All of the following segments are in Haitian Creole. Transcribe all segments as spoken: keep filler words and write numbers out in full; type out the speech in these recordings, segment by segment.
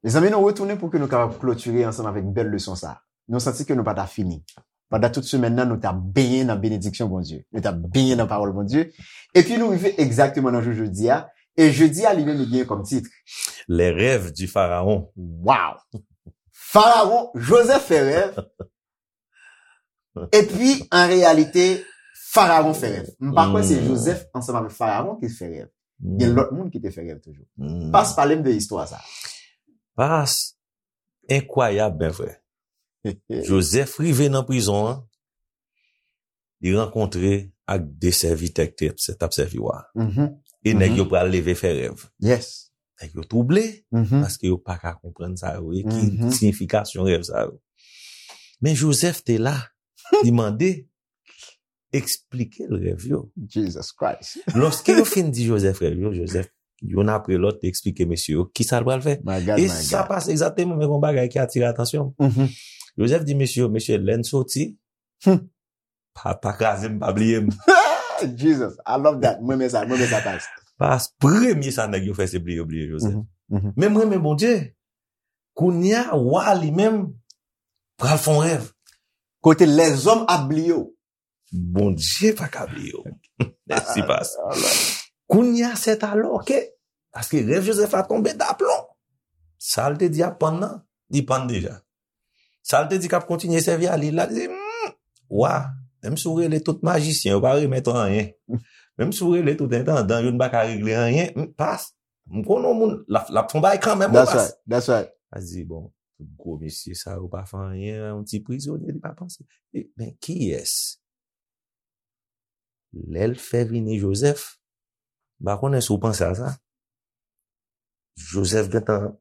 Mezanmi, nou retounen pou ke nou kapab klotire ansanm avèk bèl leson sa. Nou santi ke nou pa ta fini. Pandan tout semèn nan, nou ta benyen nan benediksyon Bondye. Nou ta benyen nan pawòl Bondye. Epi nou rive egzakteman nan jou jodi a. E jodi a, li menm, li genyen kòm tit. Les rêves du pharaon. Wow! Farawon, Jozèf fè rèv. Epi, an reyalite, Farawon fè rèv. M pa kwè se Jozèf ansanm avèk Farawon ki fè rèv. Gen lòt moun ki te fè rèv toujou. Pas, pale m de istwa sa. Pas, enkwayab, men frè. Jozèf rive nan prizon an, li rankontre ak de sèvitè ki te t ap sèvi wa. E nèg yo pral leve fè rèv. Yes. Nèg yo twouble, paske yo pa ka konprann sa yo ye, ki siyifikasyon rèv sa yo. Men Jozèf te la, li mande, eksplike l rèv yo. Jesus Christ. Lòske yo fin di Jozèf rèv yo, Jozèf, youn apre lòt, te eksplike mesye yo ki sa l pral fè. My God, E my sa God. Pase egzakteman menm yon bagay ki atire atansyon m. Jozèf di mesye yo, mesye, lè n soti, pa, pa kraze m, pa bliye m. Jesus, I love that. Mwen men sa, mwen men sa, Pas. Pas, premye sa nèg yo fè, se bliye, bliye Jozèf. Men mwen men Bondye. Kounye a, wa li menm pral fè yon rèv. Kote lèzòm ap bliye w. Bondye pa ka bliye w. Mèsi, Pas. Kounye a, c'est alors que, paske rèv Jozèf la tonbe daplon. Sa l te di ap pann nan, li pann deja. Sa l te di k ap kontinye sèvi a, li la, li di, hmm, wa, menm si w rele tout majisyen, yo pa remèt anyen. Menm si w rele tout entandan, yo n pa ka regle anyen. Hmm, Pas, m konnen yon moun, l ap, l ap fè yon bagay kanmenm, wi, That's Pas. Right, that's right. Pas di, bon, tout gwo mesye sa yo pa fè anyen, yon ti prizonye, li pa panse. E, men kiyès? Lè l fè vini Jozèf, m pa konnen si w panse a sa. Jozèf gentan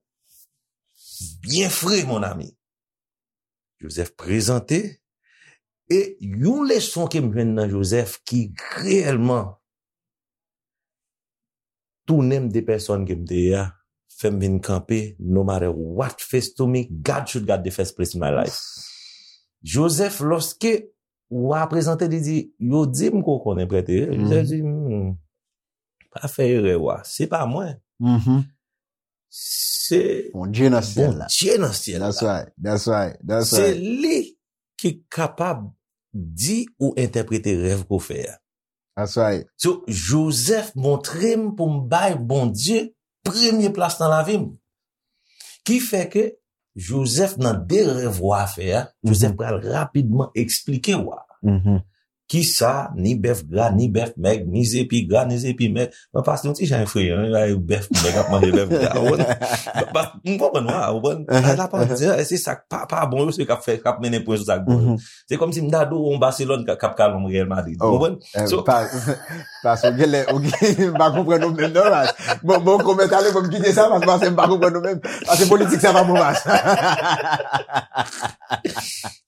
byen fre, mon ami. Jozèf prezante, e yon leson ke m jwenn nan Jozèf ki reyèlman tounen m de pèsòn ke m te ye a, fè m vin kanpe, no matter what face to me, God should got the first place in my life. Jozèf, lòske wa prezante, li di, yo di m ke w konnen prèt e. Jozèf di, hmm, pa fè erè, wa. Se pa mwen. Se Bondye nan syèl la. Bondye nan syèl la. That's right, that's right, that's right. Se li ki kapab di ou entèprete rèv ke w fè a. That's right. So, Jozèf montre m pou m bay Bondye premye plas nan lavi m. Ki fè ke Jozèf nan de rèv wa fè a, Jozèf pral rapidman eksplike wa. Kisa, ni bèf gra, ni bèf mèg, ni zepi gra, ni zepi mèg. Mwen pase yon ti jan efreyan, wi, bèf mèg ap manje bèf gra. Ou konprann? M konprann, wa, ou konprann? Sa l ap di, se sa k pa, pa bon yo, se k ap fè, k ap mennen pwen sou sa k bon yo. Se kòmsi m ta di w yon Barcelone k ap, k ap kale yon Real Madrid. Ou konprann? So, Pas, ou genlè, ou gen, m pa konprann ou menm non, Pas. Bon, bon, kòmantè ale, bon, m kite sa, Pas, paske m pa konprann ou menm. Paske politik sa pa bon, Pas.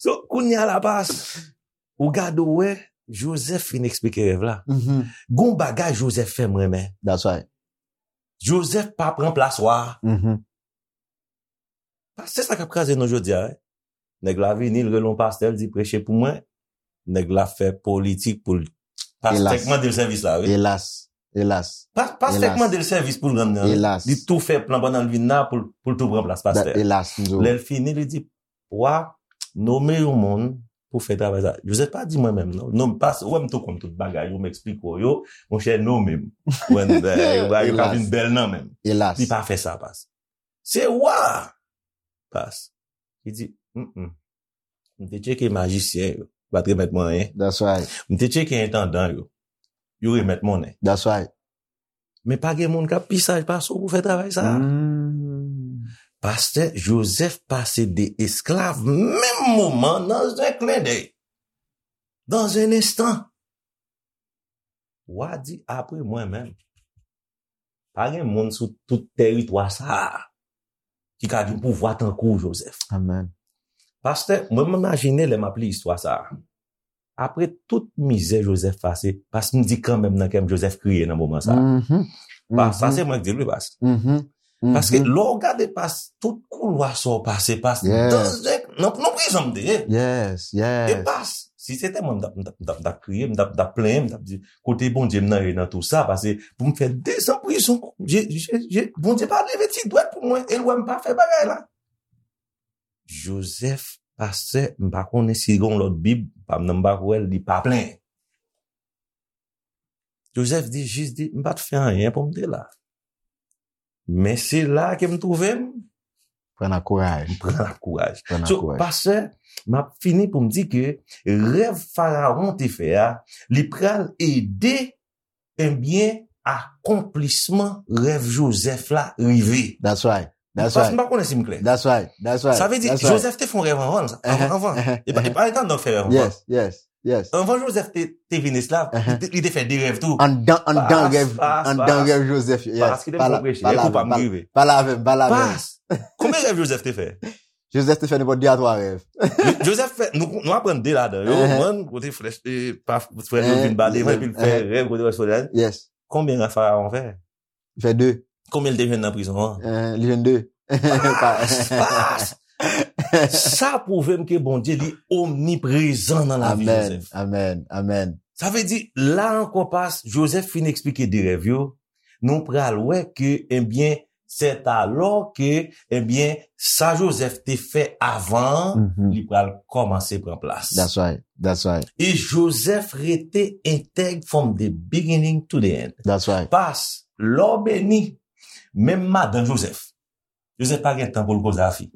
So, kounye a la, Pas, ou gade, ou wè, Jozèf fin eksplike rèv la. Gon bagay Jozèf fè m renmen. That's right. Jozèf pa pran plas wa. Pas, se sa k ap kraze nou jodi a, wi. Nèg la vini, l rele yon pastè, l di, preche pou mwen. Nèg la fè politik pou l. Pastè k mande l sèvis la, wi. Elas. Elas. Pastè k mande l sèvis pou l rann nan. Li tou fè plan pandan l vin la pou l tou pran plas pastè. Elas. Lè l fini, li di, wa, nome yon moun pou fè travay sa. Jozèf pa di mwen menm non. Non, pas, ou wè m tou konn tout bagay yo, m eksplike w yo, monchè, nome m. Ou wè, yo ka vin bèl nan men m. Li pa fè sa, Pas. Se wa. Pas. Li di, mm, m te tcheke majisyen yo, yo pa t remèt mwen anyen. That's right. M te tcheke entandan yo, yo remèt monnen. That's right. Men pa gen moun k ap pi saj pase w pou fè travay sa a. Pastè Jozèf pase de esklav menm moman nan zen klendèy. Dans un instant. Wa di apre mwen menm. Pa gen moun sou tout tèritwa sa a ki ka gen pouvwa tankou w, Jozèf. Amen. Pastè, mwen m imajine lè m ap li istwa sa a. Apre tout mizè Jozèf pase, paske m di kanmenm nan kè m, Jozèf kriye nan moman sa a. Pas, sa se mwen k di l wi, Pas. Paske lè w gade, Pas, tout koulwa sa w pase, Pas, nan, nan prizon m te ye. Yes, yes. E Pas, Si se te mwen, m t ap, m t ap, m t ap, m t ap kriye, m t ap, m t ap plenyen, m t ap di, kote Bondye m nan ye nan tou sa, paske pou m fè dezan prizon, je, je, je, Bondye pa leve ti dwèt pou mwen, e l wè m pa fè bagay la. Joseph, pastè, m pa konnen si gen yon lòt Bib, pa m nan m pa kwè l, li pa plenyen. Joseph di, jis di, m pa t fè anyen pou m te la. Men se la ke m twouve m. Pran ak kouraj. M pran ak kouraj. Pran ak kouraj. So, pastè, m ap fini pou m di ke rèv Farawon te fè a, li pral ede, ebyen, akonplisman rèv Joseph la rive. That's right. That's right. Paske m pa konnen si m klè. That's right. That's right. Sa vle di, Joseph te fè yon rèv anvan, anvan, anvan. E pa, e pa etan donk fè rèv anvan. Yes, yes, yes. Anvan Joseph te, te vin esklav, li te, li te fè de rèv tou. Anndan, anndan rèv, anndan rèv Joseph yo. Yes. Paske te fè preche, e kou pa m rive. Pale avè m, pale avè m. Pas, konbyen rèv Joseph te fè? Joseph te fè nenpòt de a twa rèv. Joseph fè, nou, nou aprann de ladan yo. One, kote frè, e, pa, frè yo vin bale, epi l fè rèv kote wè solèy. Yes. Konbyen rèv Farawon fè? Li fè de. Konbyen l te jwenn nan prizon an? Eh, li jwenn de. Pas, pas. Sa pwouve m ke Bondye li omniprezan nan lavi Joseph. Amen, amen, amen. Sa vle di, la ankò, pas, Joseph fin eksplike de rèv yo, nou pral wè ke, ebyen, c'est alors que, ebyen, sa Joseph te fè avan, li pral kòmanse pran plas. That's right, that's right. E Joseph rete entèg from the beginning to the end. That's right. Pas, lè w beni, menm madan Joseph, Joseph pa gen tan pou l koze a fi.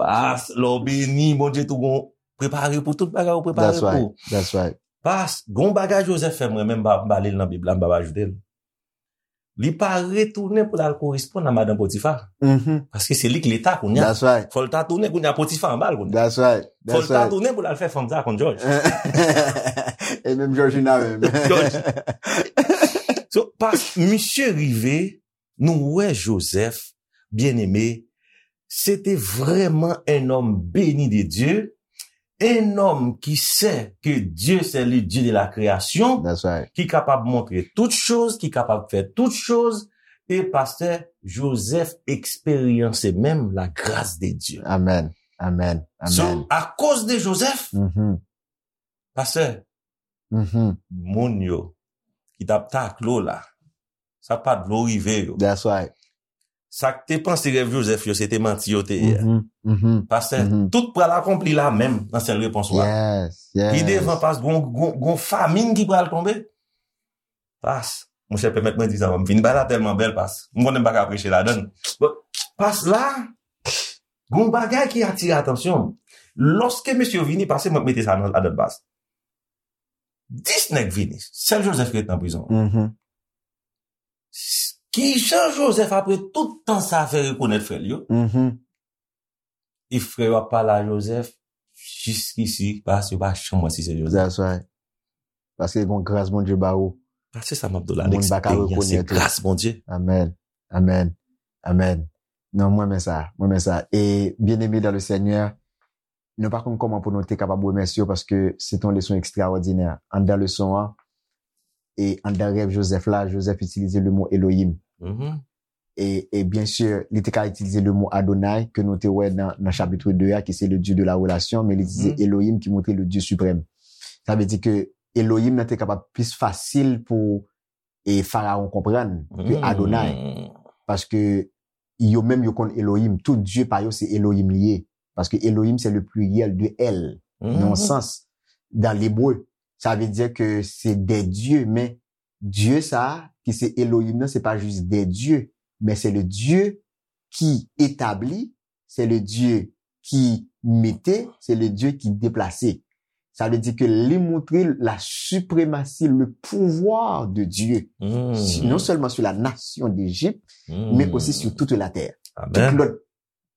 Pas, lè w beni, Bondye tou gon prepare pou tout bagay ou prepare pou. That's right. That's right. Pas, gon bagay Joseph fè mwen menm, m pa, m pa li l nan Bib la, m pa ajoute l. Li pa retounen pou l al koresponn a madan Potifa. Paske se li k leta kounye a. That's right. Fò l ta tounen kounye a, Potifa anba l kounye a. That's right. Fò l ta tounen pou l al fè fanm sa konn Jòj. E menm Jòjina menm. Jòj. So, pas, misye rive, nou wè Joseph, byeneme, se te vrèman un homme béni de Dieu, un homme qui sait que Dieu c'est le Dieu de la création, ki kapab montre tout choz, ki kapab fè tout choz, e pastè Joseph eksperyanse menm la grâce de Dieu. Amen. Amen. So, akoz de Joseph, pastè, moun yo ki t ap takle w la, sa pa dwe rive yo. That's right. Sa k te panse rèv Joseph yo, se te manti yo te ye. Pastè, tout pral akonpli la menm nan sèl repons ou a. Yes, yes. Pi devan, pas, gon, gon, gon famin ki pral tonbe. Pas, monchè, pèmèt mwen di sa, m fin bay la tèlman bèl, pas. M konnen m pa ka preche ladan l. But, pas la, gon bagay ki atire atansyon m. Lòske mesye yo vini, pase mwen mete sa nan ladan, pas. Dis nèg vini, sèl Joseph ki ret nan prizon an. Kijan Joseph, apre tout tan sa, fè rekonèt frè l yo? E frè yo ap pale a Joseph, jiskisi, pas, yo pa janm wè si se Joseph. That's right. Paske gon gras Bondye ba ou. Pas, se sa m ap di w la, moun pa ka rekonèt ou. L'expérience, se gras Bondye. Amen. Amen. Amen. Non, mwen renmen sa. Mwen renmen sa. E byeneme dans le Seigneur, nou pa konn kòman pou nou te kapab remèsye w paske se te yon leson ekstraòdinè. Anndan leson an, e anndan rèv Joseph la, Joseph itilize le mo Elohim. E, e byen si, li te ka itilize le mo Adonai, ke nou te wè nan, nan chapit de a, ki se le Dieu de la relation, men li itilize Elohim, ki montre le Dieu suprême. Sa vle di ke Elohim nan te kapab plis fasil pou, e, Farawon konprann ke Adonai. Paske yo menm yo konn Elohim, tout dye pa yo se Elohim li ye. Paske Elohim se le pluriel de El, nan yon sans, dans l'hébreu. Sa vle di ke se de dye, men Dye sa a, ki se Elohim nan, se pa jis de dye, men se le Dieu qui établit, c'est le Dieu qui mettait, c'est le Dieu qui déplaçait. Sa vle di ke li montre la suprématie, le pouvoir de Dieu, si- non seulement sur la nation d'Égypte, mais aussi sur toute la terre. Tout lòt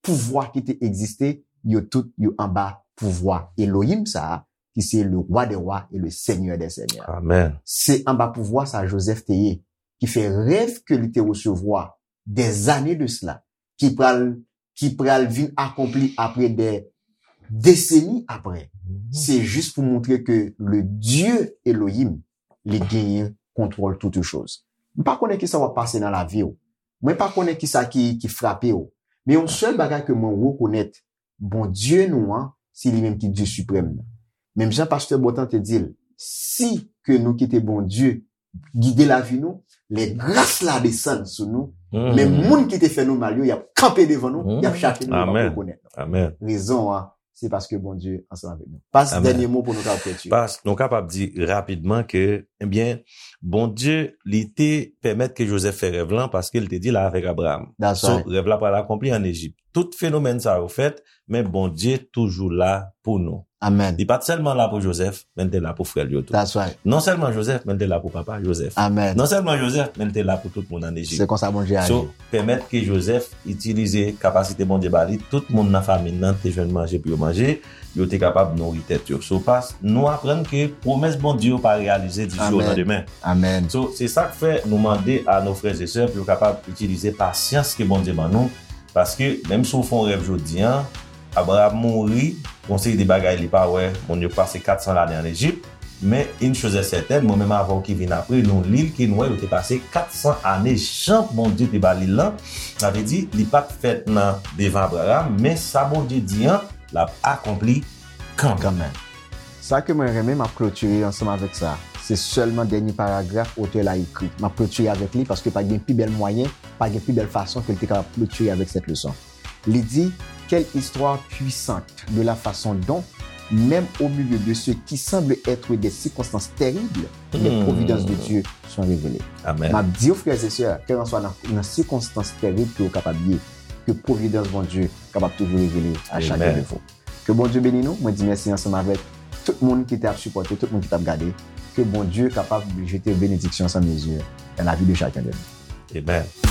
pouvwa ki te egziste, yo tout yo anba pouvwa Elohim sa a, ki se le Roi des rois et le Seigneur des seigneurs. Amen. Se anba pouvwa sa Joseph te ye, ki fè rèv ke li te resevwa des années de cela, ki pral, ki pral vin akonpli apre des décennies apre. Se jis pou montre ke le Dieu Elohim, li genyen kontwòl toutes choses. M pa konnen kisa w ap pase nan lavi w. Mwen pa konnen kisa ki, ki frape w. Men yon sèl bagay ke mwen rekonèt, Bondye nou an, se li menm ki Dye siprèm nan. Menm jan pastè Bontan te di l, si ke nou kite Bondye gide lavi nou, lè gras la desann sou nou, men moun ki te fè nou mal yo, y ap kanpe devan nou, y ap chache nou, yo p ap rekonèt nou. Rezon an, se paske Bondye ansanm avèk nou. Pas, dènye mo pou nou kapab klotire. Pas, nou kapab di rapidman ke, ebyen, Bondye, li te pèmèt ke Jozèf fè rèv lan paske li te di l avèk Abraram. So, rèv la pral akonpli ann Ejip. Tout fenomèn sa yo fèt, men Bondye toujou la pou nou. Li pa t sèlman la pou Jozèf, men l te la pou frè l yo tou. Non sèlman Jozèf, men l te la pou papa Jozèf. Non sèlman Jozèf, men l te la pou tout moun ann Ejip. Se konsa Bondye aji. So, pèmèt ke Jozèf itilize kapasite Bondye ba li, tout moun nan fanmi l nan te jwenn manje pou yo manje, yo te kapab nouri tèt yo. So, pas, nou aprann ke pwomès Bondye yo pa reyalize di jou o landemen. So, se sa k fè nou mande a nos frères et sœurs pou yo kapab itilize pasyans ke Bondye ban nou, paske menm si w fè yon rèv jodi a, Abraram mouri, gon seri de bagay li pa wè, moun yo pase kat san lane ann Ejip, men une chose est certaine, mwen menm avè w ki vin apre, nou li l ke nou wè yo te pase kat san ane, jan Bondye te ba li l lan, sa vle di, li pa t fèt nan devan Abraram, men sa Bondye di an, l ap akonpli kanmenm. Sa ke mwen renmen, m ap klotire ansanm avèk sa. Se sèlman dènye paragraf otè la ekri. M ap klotire avèk li paske pa gen pi bèl mwayen, pa gen pi bèl fason ke l te kapab klotire avèk sèt leson. Li di, quelle histoire puissante de la façon dont, même au milieu de ce qui semble être des circonstances terribles, les providences de Dieu sont révélées. M ap di w, frè e sè, kèlkanswa nan, nan sikonstans tèrib ke w kapab ye, ke pwovidans Bondye kapab toujou revele a chak de vou. Ke Bondye beni nou. Mwen di mèsi ansanm avèk tout moun ki t ap sipòte, tout moun ki t ap gade. Ke Bondye kapab jete benediksyon san mezi dans la vie de chacun de nous. Amen.